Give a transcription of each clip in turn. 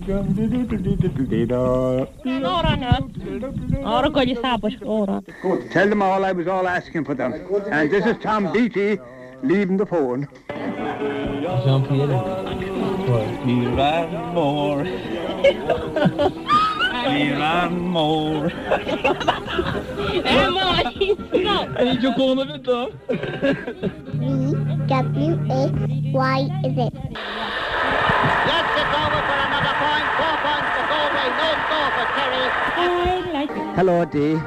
Tell them all I was all asking for them. And this is Tom Beatty leaving the phone. Ní raibh mór. Ní raibh mór. V W X Y Z. Yes, it's over for another point. Four points for Galway, no score for Kerry. Hello, Dee.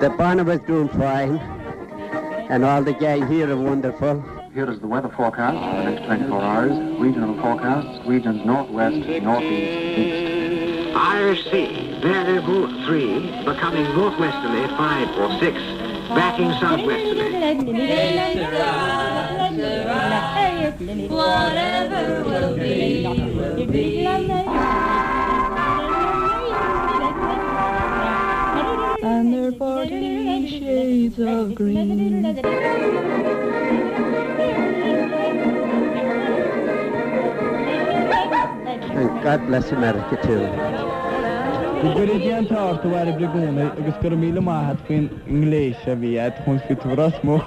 The Barnabas doing fine, and all the gang here are wonderful. Here is the weather forecast for the next 24 hours. Regional forecasts, regions northwest, northeast, east. Irish Sea, variable 3, becoming northwesterly 5 or 6, backing southwesterly. Whatever will be, will be. And they're 40 shades of green. And God bless America too. Go gcuire Dia an t-ádh ort a Bhairbre i gcónaí agus go raibh míle maith a't faoin ngléas a bhí a't chun fiú tú Ros Muc.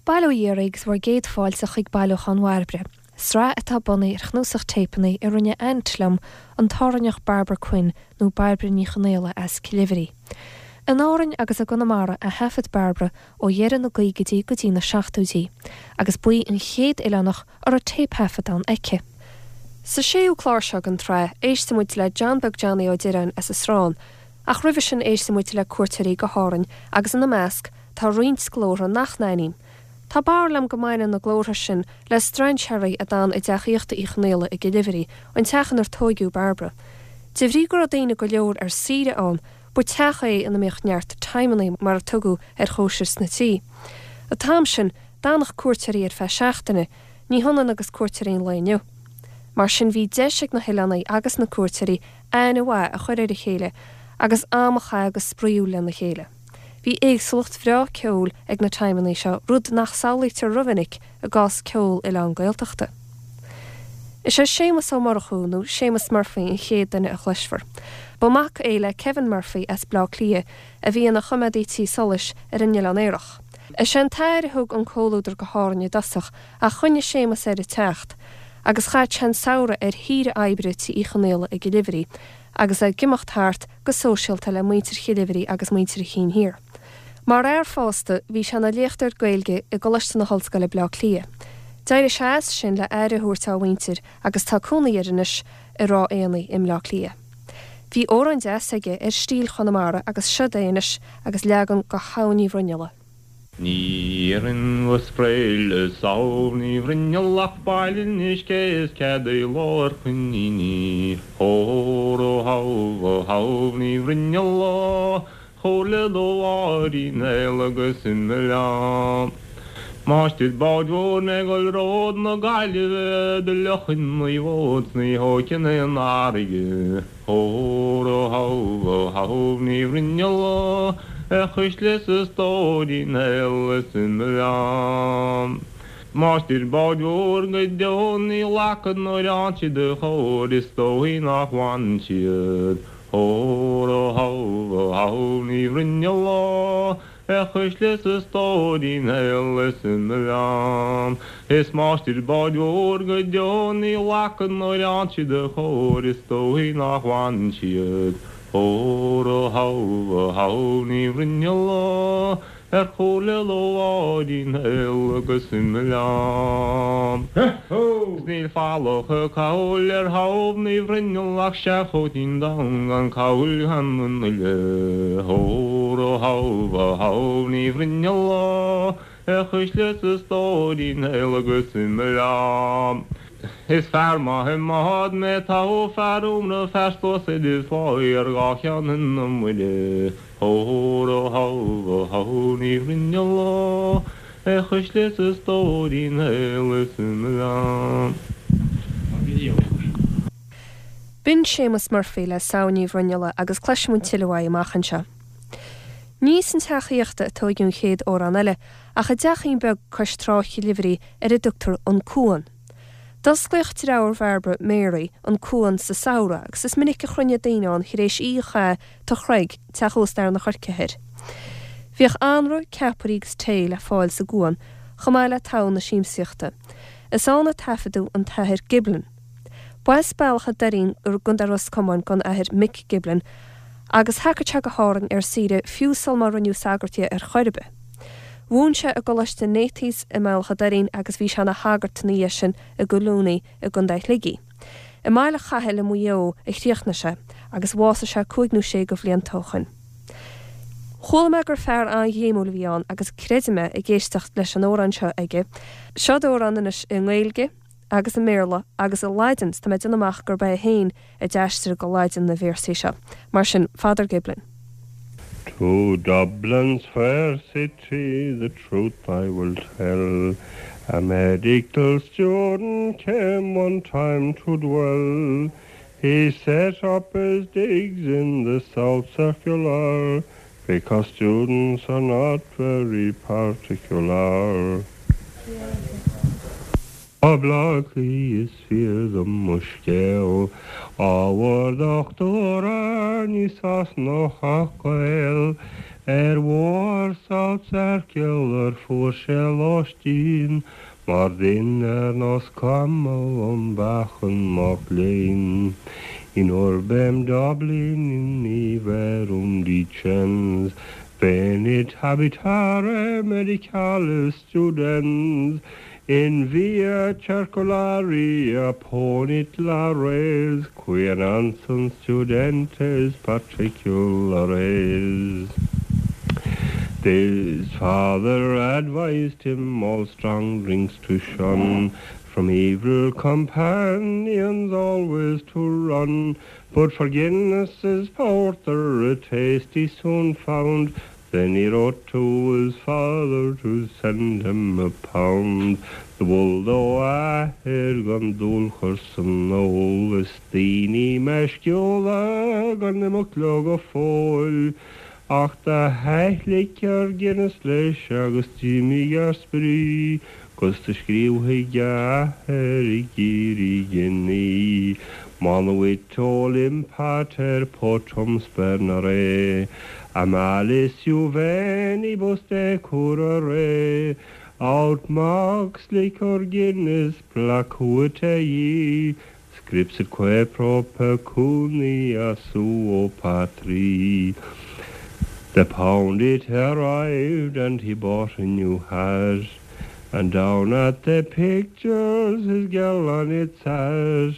Bail ó Dhia oraibh agus bhur gcéad fáilte chuig Bailiúchán Bhairbre, sraith atá bunaithe ar chnuasach téipeanna a rinne aint liom, an tÁrainneach Barbara Quinn nó Bairbre Ní Chonaola as Cill Oibhrí. In Árainn agus i gConamara a thaifead Bairbre ó dheireadh na gcaogaidí go dtí na seachtóidí, agus ba í an chéad oileánach a raibh téipthaifeadán aici. Sa séú clár seo den tsraith, éistfidh muid le John Beag Johnny Ó Direáin as an Srán, ach roimhe sin éistfidh muid le cuairteoirí go hÁrainn agus ina measc tá roinnt glórtha nach n-aithním. Tá barúil agam go mbaineann na glórtha sin le strainséirí a d'fhan i dteach aíochta Uí Chonaola i gCill Oibhrí, an teach inar tóigeadh Bairbre. De bhrí go raibh daoine go leor ar saoire ann, ba teach é ina mbíodh neart timeannaí mar a tugadh ar chóisir sna tithe. An t-am sin, d'fhanadh cuairteoirí ar feadh seachtaine, ní hionann agus cuairteoirí an lae inniu. Mar sin bhí deis ag na hoileánaigh agus na cuairteoirí aithne mhaith a chur ar a chéile agus am a chaitheamh go spraíúil lena chéile. Bhí éagsúlacht bhreá ceoil ag na timeannaí seo, rud nach samhlaítear rómhinic i gcás ceol oileán Gaeltachta. Is é Séamus Ó Murchú, nó Séamus Murphy an chéad duine a chloisfear. Ba mhac é le Kevin Murphy as Bleá Cliath a bhí ina choimeádaí tí solais ar an Oileán Aerach. Is é an t-athair a thug an comhluadar go hÁrainn i dtosach ach choinnigh Séamus air ag teacht agus chaith sé an samhradh ar shaoire oibre tí Uí Chonaola i gCill Oibhrí agus é ag imeacht thart go sóisialta le muintir Chill Oibhrí agus muintir an Chinn Thiar. Mar fhear fásta, bhí sé ina léachtóir Gaeilge i gColáiste na hOllscoile Bleá Cliath. D'éirigh sé as sin le aire a thabhairt dá mhuintir agus tá cónaí air anois i Ráth Éanaigh i mBleá Cliath. Bhí amhrán deas aige ar stíl Chonamara agus seod é anois agus leagan de Shamhain Uí Bhruinnealla. Ní iarrfainn go spré le Samhain Uí Bhruinneall ach bail anois cé is cead i lár coiníní. Óró shamh ó Shamhain Uí Bhruinneall ó chomhairle do Mháirín Néill agus imigh liom. Máistir báid mhóir mé ag dul ród na Gaillimhe do fhliuchfainn mo bhót 's ní thógfainn aon fharraige. Óró shamh ó Shamhain Uí Bhruinneall ó a chuisle 's a stóirín aol is imigh liom. Máistir báid mhóir go deo ní ghlacfad nuair fhaigheann siad a chóir is dóichí nach bhfanann siad. Óró shamh ó Shamhain Uí Bhruinneall ó A chuisle 's a stóirín aol is imigh liom. Is máistir báid mhóir go deo ní ghlacfad nuair fhaigheann siad a chóir is dóichí nach bhfanann siad. Óró shamh ó Shamhain Uí Bhruinneall ó ar chomhairle do Mháirín aol agus imigh liom. 'S níl falach a cabhail ar Shamhain Uí Bhruinneall ach seanchóitín donn gan cabhail gan an uile. Óró shamh ó Shamhain Uí Bhruinneall ó a chuisle 's a stóirín aol agus imigh liom. Is fear maith i mbád mé toghadh fear iomramh fear sluasaid is láí ar dhá cheann na Muire. Óró shamh ó Shamhain Uí Bhruinneall ó A chuisle 's a stóirín aol is imigh liom. B'in Séamus Murphy le Samhain Uí Bhruinnealla agus cloisfidh muid tuilleadh uaidh amach anseo. Ní san teach aíochta a tóigeadh an chéad amhrán eile, ach i dteachín beag cois trá Chill Oibhrí ar a dtugtar An Cuan. D'osclaíodh deartháir Bhairbre, Mary, an Cuan sa samhradh agus is minic a chruinneodh daoine ann tar éis oíche a chaitheamh Tigh Chreig, teach ósta Fhear na Coirce Thoir. Bhíodh anraith, ceapairí agus tae le fáil sa gCuan, chomh maith le togha na siamsaíochta. Is ann a taifeadadh an tAthair Giblin. B'as Bealach a' Doirín i gContae Ros Comáin don Athair Mick Giblin agus thagadh sé go hÁrainn ar saoire fiú sul má rinneadh sagart dhe ar chor ar bith. Mhúin sé i gColáiste Nathy's i mBealach a' Doirín agus bhí sé ina shagart ina dhiaidh sin i gCollooney i gContae Shligigh. I mBaile Chathail i Maigh Eo a chríochnaigh sé agus bhásaigh sé cúig nó sé de bhlianta ó shoin. Chuala mé gur fear an-ghréimiúil a bhí ann agus creidim é ag éisteacht leis an amhrán seo aige. Seod amhrán anois i nGaeilge agus i mBéarla agus i Laidin, 's tá mé ag déanamh amach gurb é féin a d'aistrigh go Laidin na véarsaí seo. Mar sin, Father Giblin. To Dublin's fair city the truth I will tell A medical student came one time to dwell He set up his digs in the South Circular Because students are not very particular. Ó Bhleá Cliath is fíor dom mo scéal, Ábhar dochtúra ní Sasanach ach Gael, Ar bhóthar South Circular fuair sé lóistín, Mar duine ar nós camall um mheáchan mac léinn. In urbem Dublini verum dicens, Venit habitare medicalis studens, In via circulari opponit lares, Quia non sunt studentes particulares. His father advised him all strong drinks to shun, From evil companions always to run, But for Guinness's porter a taste he soon found, Then he wrote to his father to send him a pound. Do mhol dó a athair gan dúil chur san ól, Is daoine meisciúla gan imeacht leo go fóill, Ach do thaithlic ar Guinness leis agus d'imigh ar spree, 'Gus do scríobh chuig a athair ag iarraidh giní. Monuit olim pater potum spernere, A malis juvenibus decurrere, Aut mox liquor Guinness placuit ei, Scripsitque pro pecuniā suō patrī. The pound it arrived and he bought a new hat, And down at the pictures his girl on it sat,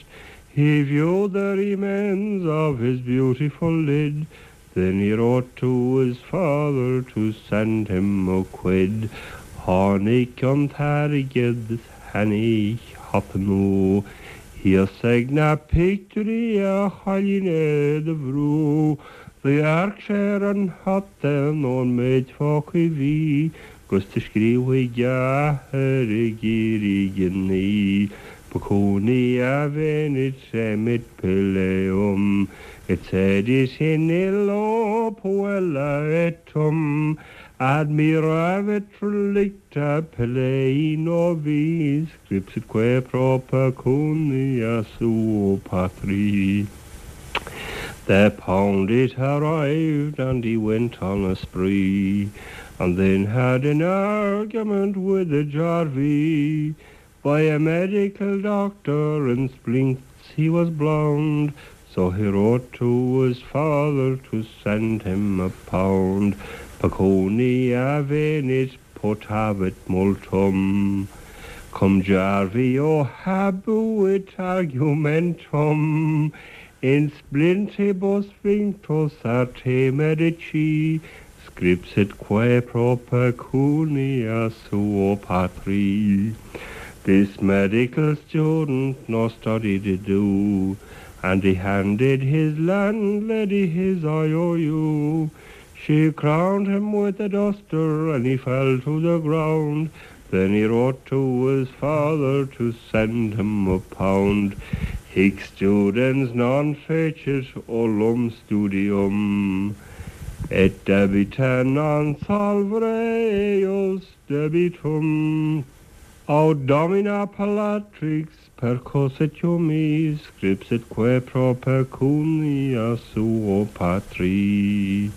He viewed the remains of his beautiful lid, Then he wrote to his father to send him a quid. Tháinig an t-airgead is tháinig hata nua Thíos ag na pictiúirí a chailín é do bhrú Do dhearc sé ar an hata nó an méid fágtha bhí 'Gus do scríobh chuig a athair ag iarraidh giní Pecunia venit emit pileum Et sedit in illo puella et tum Admiravit relicta pilei novi Scripsitque pro pecunia suo patri. The pound it arrived and he went on a spree And then had an argument with a jarvey By a medical doctor in splints he was blown So he wrote to his father to send him a pound Pecunia venit potavit multum Cum Jarvio habuit argumentum In splintibus vinctus arte medici Scripsitque pro pecunia suo patri. This medical student no study did do, And he handed his landlady his IOU. She crowned him with a duster and he fell to the ground. Then he wrote to his father to send him a pound. Hic studens non fecit ullum studium. Et debita non solvere eius debitum. Aut domina appellatrix percussit humī, scripsitque pro pecūniā suō patrī.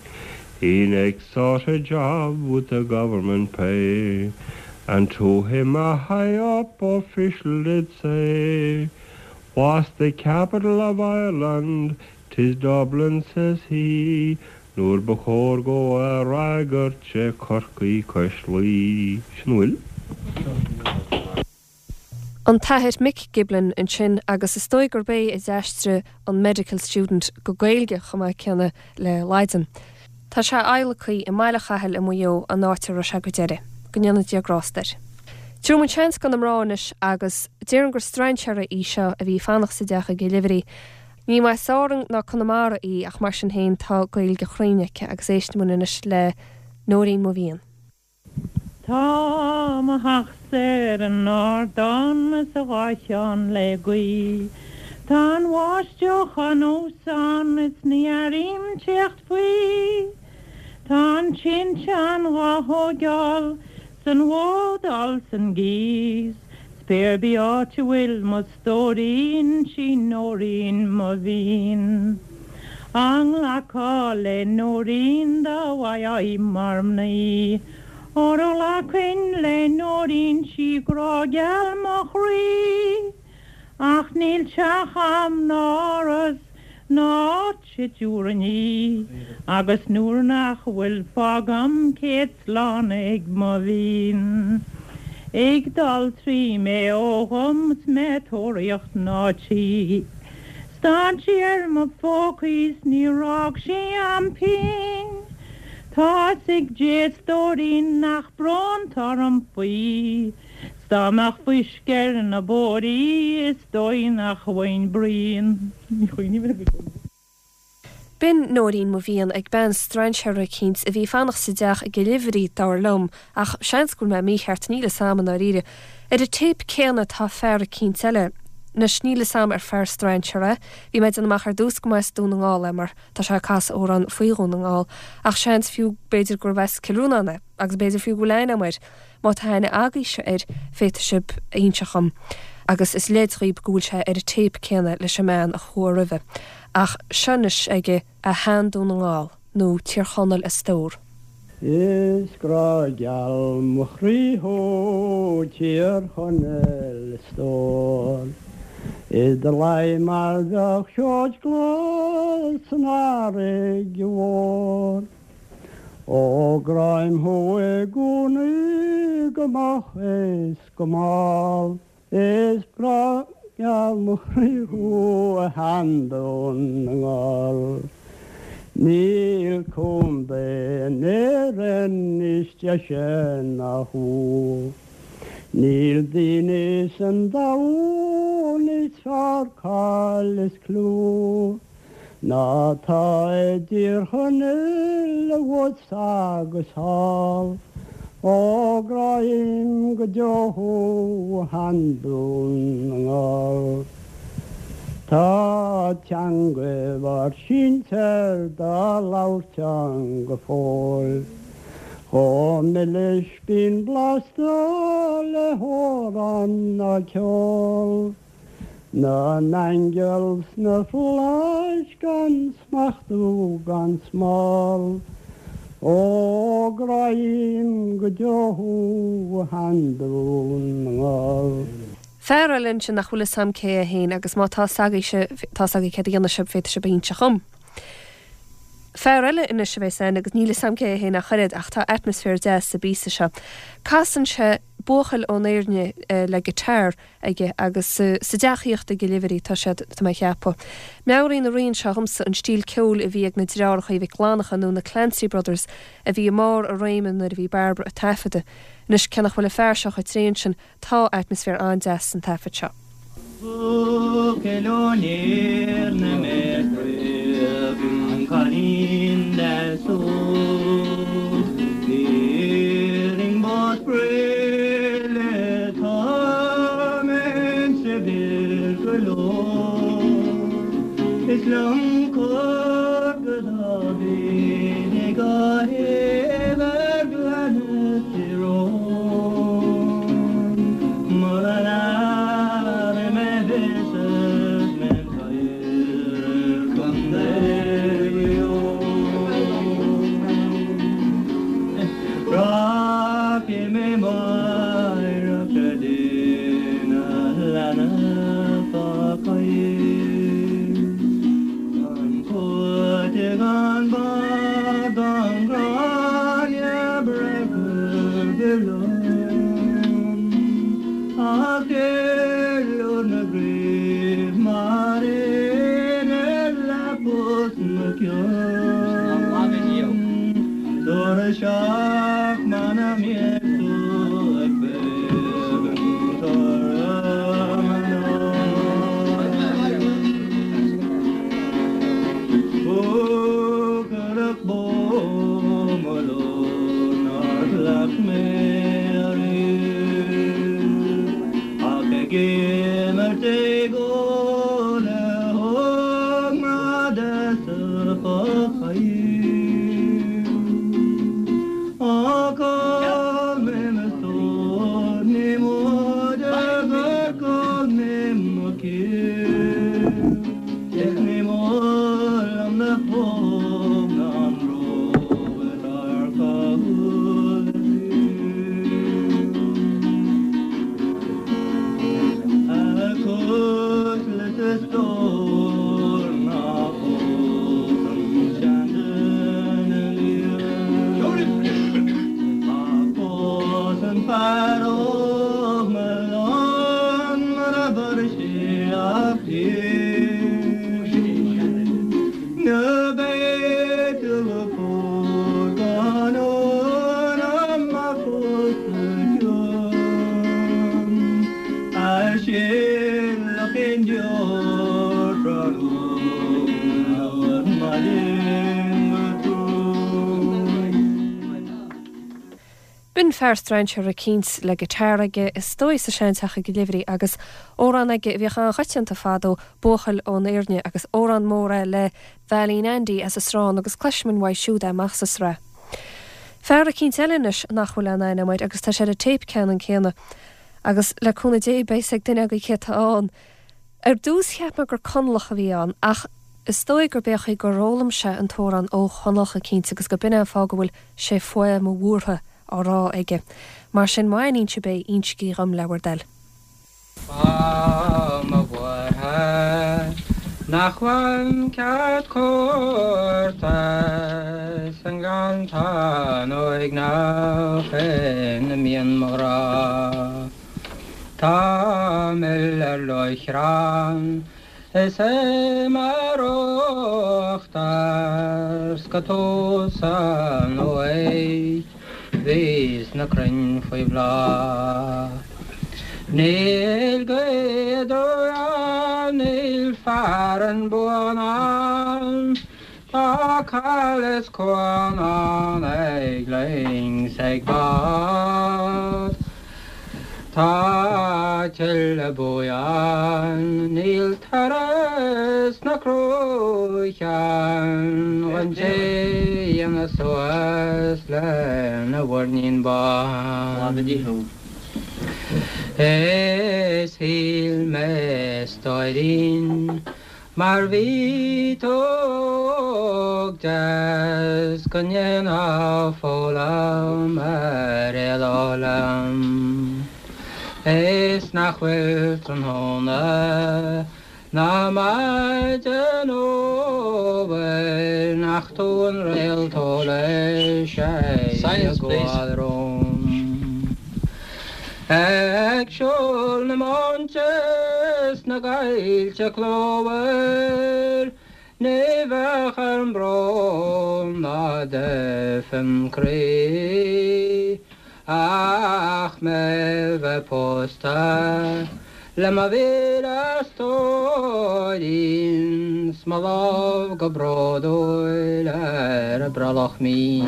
He next sought a job with the government pay, and to him a high up official did say, What's the capital of Ireland? 'Tis Dublin, says he, Nuair ba chóir dhó a fhreagairt sé Corcaigh cois Laoi. Sin a bhfuil. An tAthair Mick Giblin ansin agus is dóigh gurb é a d'aistrigh an Medical Student go Gaeilge chomh maith céanna le Laidin. Tá sé adhlactha i mBaile Chathail i Maigh Eo, an áit a raibh sé go deireadh. Go ndéana Dia grásta air. Tabharfaidh muid seans do na mná anois agus déarfainn gur strainséara í seo a bhí ag fanacht sa dteach i gCill Oibhrí. Ní as Árainn ná Conamara í ach mar sin féin tá Gaeilge chruinn aici agus éistfidh muid anois le Nóirín Mo Mhian. Tá mo theachsa ar an ardán is a dhá cheann le gaoith. Tá an bháisteach anuas ann is ní airím teacht faoi. Tá an tinteán dhá thóigeáil 's an bhó dul san gcíos. 'S pé ar bith áit a bhfuil mo stóirín 'sí Nóirín mo mhian. Á nglacfá le Nóirín dá bhfaigheá í mar mhnaoi. Óra ghlacfainn le Nóirín 'sí grá geal mo chroí. Ach níl teach a'm ná áras ná áit a dtiúrfainn í, agus nuair nach bhfuil fágaim céad slán ag mo bhean. Ag dul trí Maigh Eo dhom 's mé ag tóraíocht mná tí. Stad sí ar mo phócaí 's níor fhág sí a'm pingin. Tá 'fhios ag Dé a stóirín nach brón 'tá orm faoi. 'S dá mbeadh fuisce ar na bóithrí is dóigh nach bhfaighinn bruíon. B'in Nóirín Mo Mhian ag bean strainséara eicínt a bhí ag fanacht sa dteach i gCill Oibhrí, dar liom, ach seans go bhfuil mé mícheart, níl fhios a'm i ndáiríre. Ar an téip céanna tá fear eicínt eile. Anois, níl fhios a'm ar fear strainséara é. Bhí mé ag déanamh amach ar dtús go mba as Dún na nGall é mar tá sé ag casadh amhrán faoi Dhún na nGall, ach seans fiú b'fhéidir gurbh as Cill Rónáin é, agus b'fhéidir fiú go bhfuil aithne a'm air. Má tá aithne agaibhse air, féadfaidh sibh a inseacht dhom, agus is leid dhaoib go bhfuil sé ar an téip céanna leis an mbean a chuaigh roimhe. Ach seo anois aige A Shean-Dún na nGall, nó Tír Chonaill a Stór. Is grá geal mo chroí thú, Tír Chonaill a stór. I do luí mar bheadh seoid glas san fharraige mhór. Ó gráim thú i gcónaí go moch is go mall, Is grá geal mo chroí thú a Shean-Dún na nGall. Níl contae in Éirinn níos deise ná thú, Níl daoine san domhan níos fearr cáil is clú. Ná tá i dTír Chonaill abhus agus thall, Ó gráim go deo thú a Shean-Dún na nGall. Tá teangaidh bhur sinsear dá labhairt ann go fóill, Chomh milis bíonn blasta le hamhrán ná ceol. Na n-aingeal sna flaithis gan smachtú gan smál, Ó gráím go deo thú a Shean-Dún na nGall. Fear eile ansin nach bhfuil fhios a'm cé é féin agus má tá fhios agaibhse, tá fhios agaibh céard a dhéanfaidh sibh, féadfaidh sibh a inseacht dhom. Fear eile anois a bheas ann agus níl fhios a'm cé é féin ach oiread ach tá atmaisféar deas sa bpíosa seo. Casann sé buachaill ón Éirne le guitar aige agus sa dteach aíochta i gCill Oibhrí tá siad, tá mé a cheapadh. Meabhraíonn an rian seo dhomsa an stíl ceoil a bhí ag na deartháireacha Mhic Fhlannchadha nó na Clancy Brothers a bhí i mbarr a réime nuair a bhí Bairbre ag taifeadadh. Anois cé nach bhfuil an fear seo chomh tréan sin, tá atmaisféar an-deas san taifead seo. Buachaill ón Éirne mé craobh an cailín deas óg. B'Éirinn ba spraoi le tá mé saibhir go leor. Is liom cur go Dáivid ag. Ach muna mbeidh tú ag féachaint orm anocht. Buachailleach bó mo lord nár chleacht mé ariamh ach ag imirt ag ól le hógmhná deasa Chocaigh. Ach ól mé mo stór, ní móide gur chaill mé mo chiall. Is ní mór liom na póg ná an bróg atá ar chúl a A chuisle 's a stór ná fós an seanduine liath. Ach phós an fear óg mallán mar a bhfuair sé a phian. Ná beidh tú a phós gan ionam a phós a chion. A shilfeadh aon deoir tráthnóna ar maidin go trom. B'in fear strainséartha eicínt le guitar aige, is dóigh sa seanteach i gCill Oibhrí, agus amhrán aige a bhíodh an-choitianta fadó, Buachaill ón Éirne, agus amhrán mór é le Veailín Andy as an Srán agus cloisfimid uaidh siúd é amach sa sraith. Fear eicínt eile anois nach bhfuil aon aithne agam air agus tá sé ar an téip ceannann céanna. Agus le cúnamh Dé beidh 'fhios ag duine agaibh cé atá ann. Ar dtús cheap mé gur Conallach a bhí ann ach is dóigh gurb é an chaoi gur fhoghlaim sé an t-amhrán ó Chonallach eicínt agus go b'in é an fáth go bhfuil 'sé faoi mo bhuartha' á rá aige. Mar sin má aithníonn sibh é, insigí dhom le bhur dtoil. Fáth mo bhuartha nach bhfaighim cead cuairte san ngleanntán uaigneach ina mbíonn mo ghrá. Tá mil ar lóchrann is é mar uachtar 's go tús an uaigh bhíos na crainn faoi bhláth. Níl gaoth aduaidh ann, níl fearann buan ann, Tá cail is cuan ann ag loing 's ag bád. Tá tuile buí ann, níl toradh sna cruacha an té a dhéanfas suas lena mhuirnín bán. Is shíl mé a stóirín Mar bhí tú óg deas go ndéanfá foghlaim ar éaló liom Is nach bhfuil tráthnóna ná maidin uabhair nach tú an réalt eolais ag gabháil romham. Ag siúl na móinte 's na gcoillte clumhar, ní bheadh orm brón ná duifim croí ach mé bheith pósta le mo mhíle stóirín 's mo lámh go bródúil ar a brollach mín.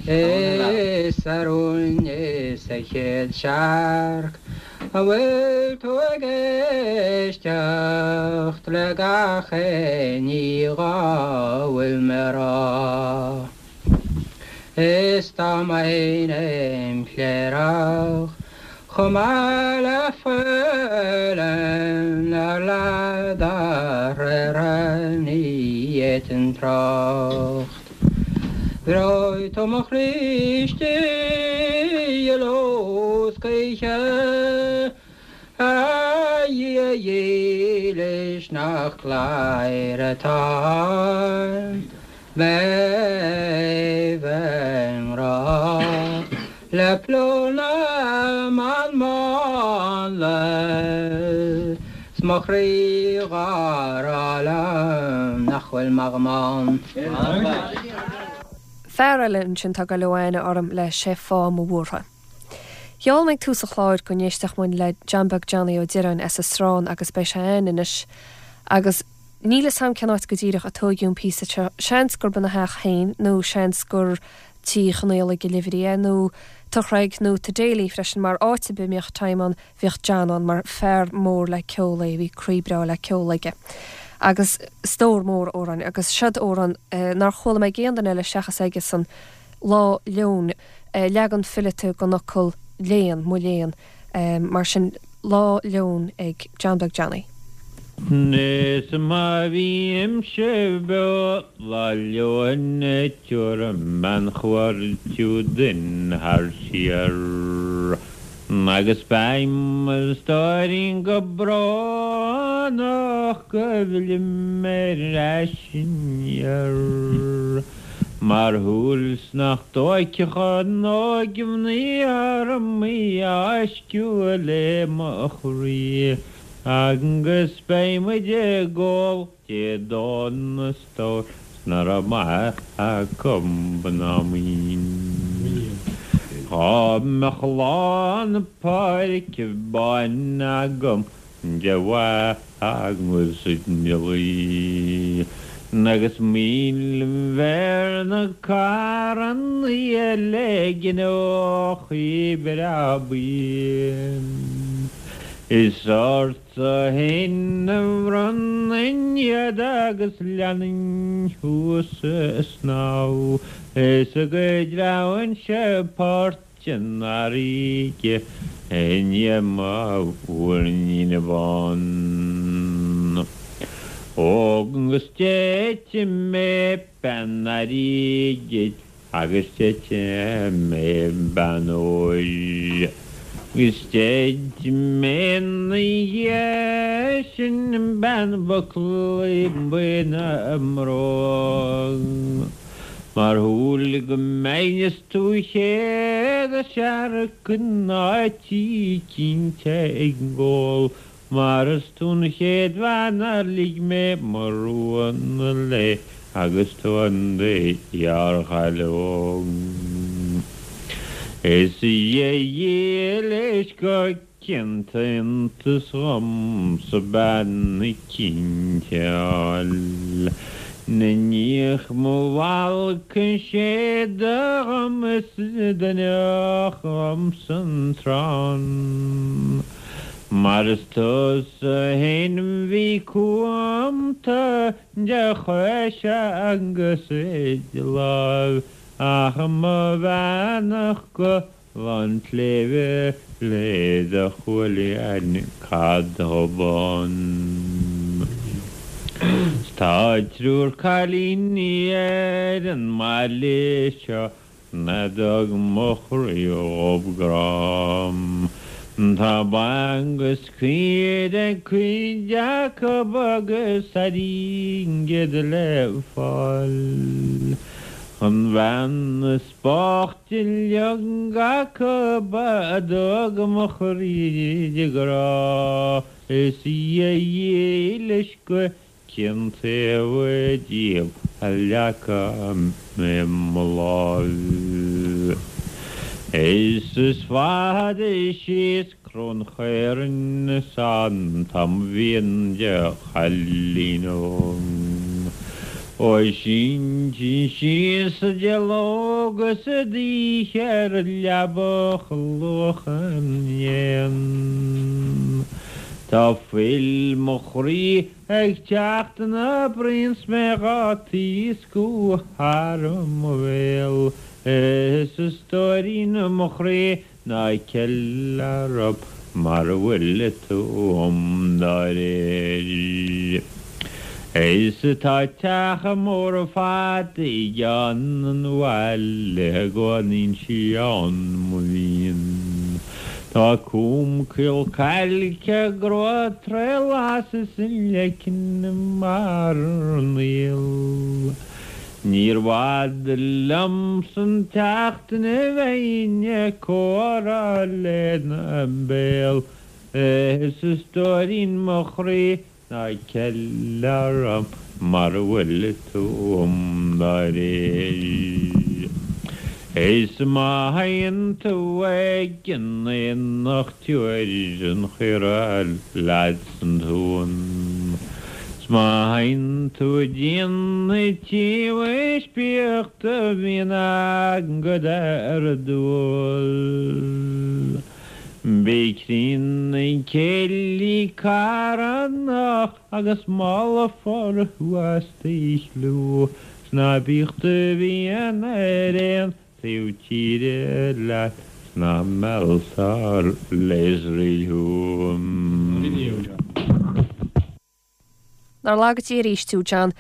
Is a rúin is a chéad searc an bhfuil tú ag éisteacht le gach aon ní dhá bhfuil mé a rá? Is dá mbeinn im chléireach chomh maith le faoileán ar leath dá thréithre ní fhéadfainn trácht. Bhreoigh tú mo chroí istigh i ló 's choíche, A Dhia dhílis nach cladhaire atá mé bheith i ngrá le plúr na mban mánla 's mo chroí dhá rá liom nach bhfuil m'am ann. Fear eile ansin atá ag goil ó aithne orm le Sé Fáth Mo Bhuartha. Gheall mé ag tús an chláir go n-éistfeadh muid le John Beag Johnny Ó Direáin as an Srán agus beidh sé againn anois agus níl 'fhios a'm cén áit go díreach a tóigeadh an píosa seo, seans gurb ina theach féin nó seans gur Tí Chonfhaolaidh i Oilibhrí é nó Tigh Chreig nó Tigh Daly freisin mar áit ar bith a mbíodh Time ann bhíodh John ann mar fear mór le ceol é, bhí croí breá le ceol aige. Agus stór mór amhráin agus seod amhrán nár chuala mé ag aon duine eile seachas aige-san, Lá Leoin, leagan fileata den fhocal léan, mo léan, mar sin Lá Leoin ag John Beag Johnny. Is má bhímse beo Lá Leoin tabharfaidh mé an chuairt duinn thar siar. Agus beidh mo stóirín go brónach go bhfillfidh mé ar ais aniar. Mar shúil 's nach dtóigfeadh an óigmhnaoi orm í a fháisceadh le mo chroí. Agus beidh muid ag ól Dé Domhnaigh a stór 's ná raibh maith acu ná maoin. Dhá mbeadh lá na páirce báine agam de mhaith agus de dhlaoi, agus 1000 bhéarna carrannaí le gineochaí breá buí. Is ortsa fhéin a bhronnfainn iad agus leanfainn thú sa snámh, is go dtreabhainnse port an fharraige i ndiaidh mo mhuirnín bán. Agus déidfidh mé bean airgid agus déidfidh mé bean óir agus déidfidh mé 'na dhiaidh sin bean bhuclaí buí na mbróg. Mar shúil go mbeinn is tú chéad a searc in áit eicínt ag ól mar is tú an chéad bhean ar lig mé mo rún léi agus tú in do ghearrchaile óg. Is a Dhia dhílis go Cinnte iontas dhomsa bean eicínt a fháil 'Na ndiaidh mo bhalcadh séide dhom is d'fhuineodh dhomsa an trán. Mar is tusa fhéin bhí cúnta de chois agus de láimh ach mo bheannacht go Lán tSléibhe le do chuaillí cad dob ann. 'S tá triúr cailíní ar an mbaile seo a dtug mo chroí dhób grá. Tá ba agus caoire ag cuid acub agus airgead le fáil. An bhean is Boichte uilig acub a dtug mo chroí di grá, is í a dhílis go cén taobh díobh a leagfaidh mé mo láimh. Is is fada síos Cró an Chaorainn is an t-am a bhíonn de chailín óg. Ó sínte síos de ló agus d'oíche ar leaba chluacha na n-éan. Tá fuil mo chroí ag teacht ina braon 's mé dhá taoscadh thar mo bhéal is a stóirín mo chroí Ná ceil orm mar a bhfuil tú dá réir. Is tá teach mór fada i gceann an bhaile a gcónaíonn sí ann mo mhian. Tá cúm caol cailce grua tré las is an leiceann mar an aol. Níor bhfada liomsa an tseachtain a bheinn ag comhrá lena béal is a stóirín mo chroí ná ceil orm mar a bhfuil tú dá réir. Is má théann tú ag an aonach tabhair an chaora leat san tóin. 'S má théann tú dtí an tsiamhais bíodh do mhian agat ar dúil. Bí críonna céillí carthanach agus molfar thú as do chliú. 'S ná bíodh do mhian ar aon taobh tíre leat 's ná mealltar le Iosrael thú. Nár laga Dia arís thú, John.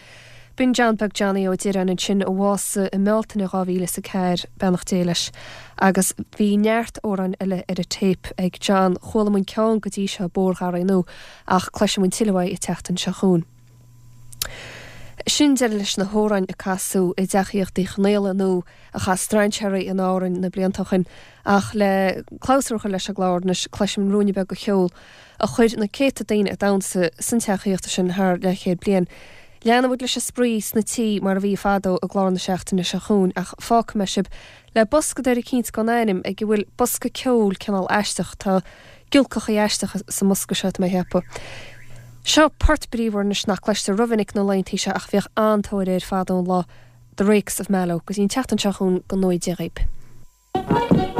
B'in John Beag Johnny Ó Direáin ansin a bhásaigh i mBealtaine 2004, beannacht Dé leis. Agus bhí neart amhráin eile ar an téip ag John. Chuala muid ceann go dtí seo, Bóthar Gharraí Nua, ach cloisfidh muid tuilleadh uaidh an tseachtain seo chugainn. Sin deireadh leis na hamhráin a casadh i dTeach Aíochta Uí Chonaola nó a chas strainséirí in Árainn na blianta ó shin. Ach le clabhsúr a chur leis an gclár anois, cloisfimid ruainne beag de cheol a chuir na céadta daoine ag damhsa san teach aíochta sin thar leathchéad bliain. Leanfaidh muid leis an spraoi sna tithe mar a bhí fadó i gclár na seachtaine seo chugainn ach fágfaidh mé sibh le boscadóir eicínt gan ainm ag a bhfuil bosca ceoil cineál aisteach. Tá giolcachaí aisteacha sa mbosca seo, tá mé a cheapadh. Seo port bríomhar anois nach gcloistear rómhinic na laethantaí seo ach bhíodh an-tóir air fadó an lá, The Rakes of Mallow. Go dtí an tseachtain seo chugainn, go ngnóthaí Dia dhaoib.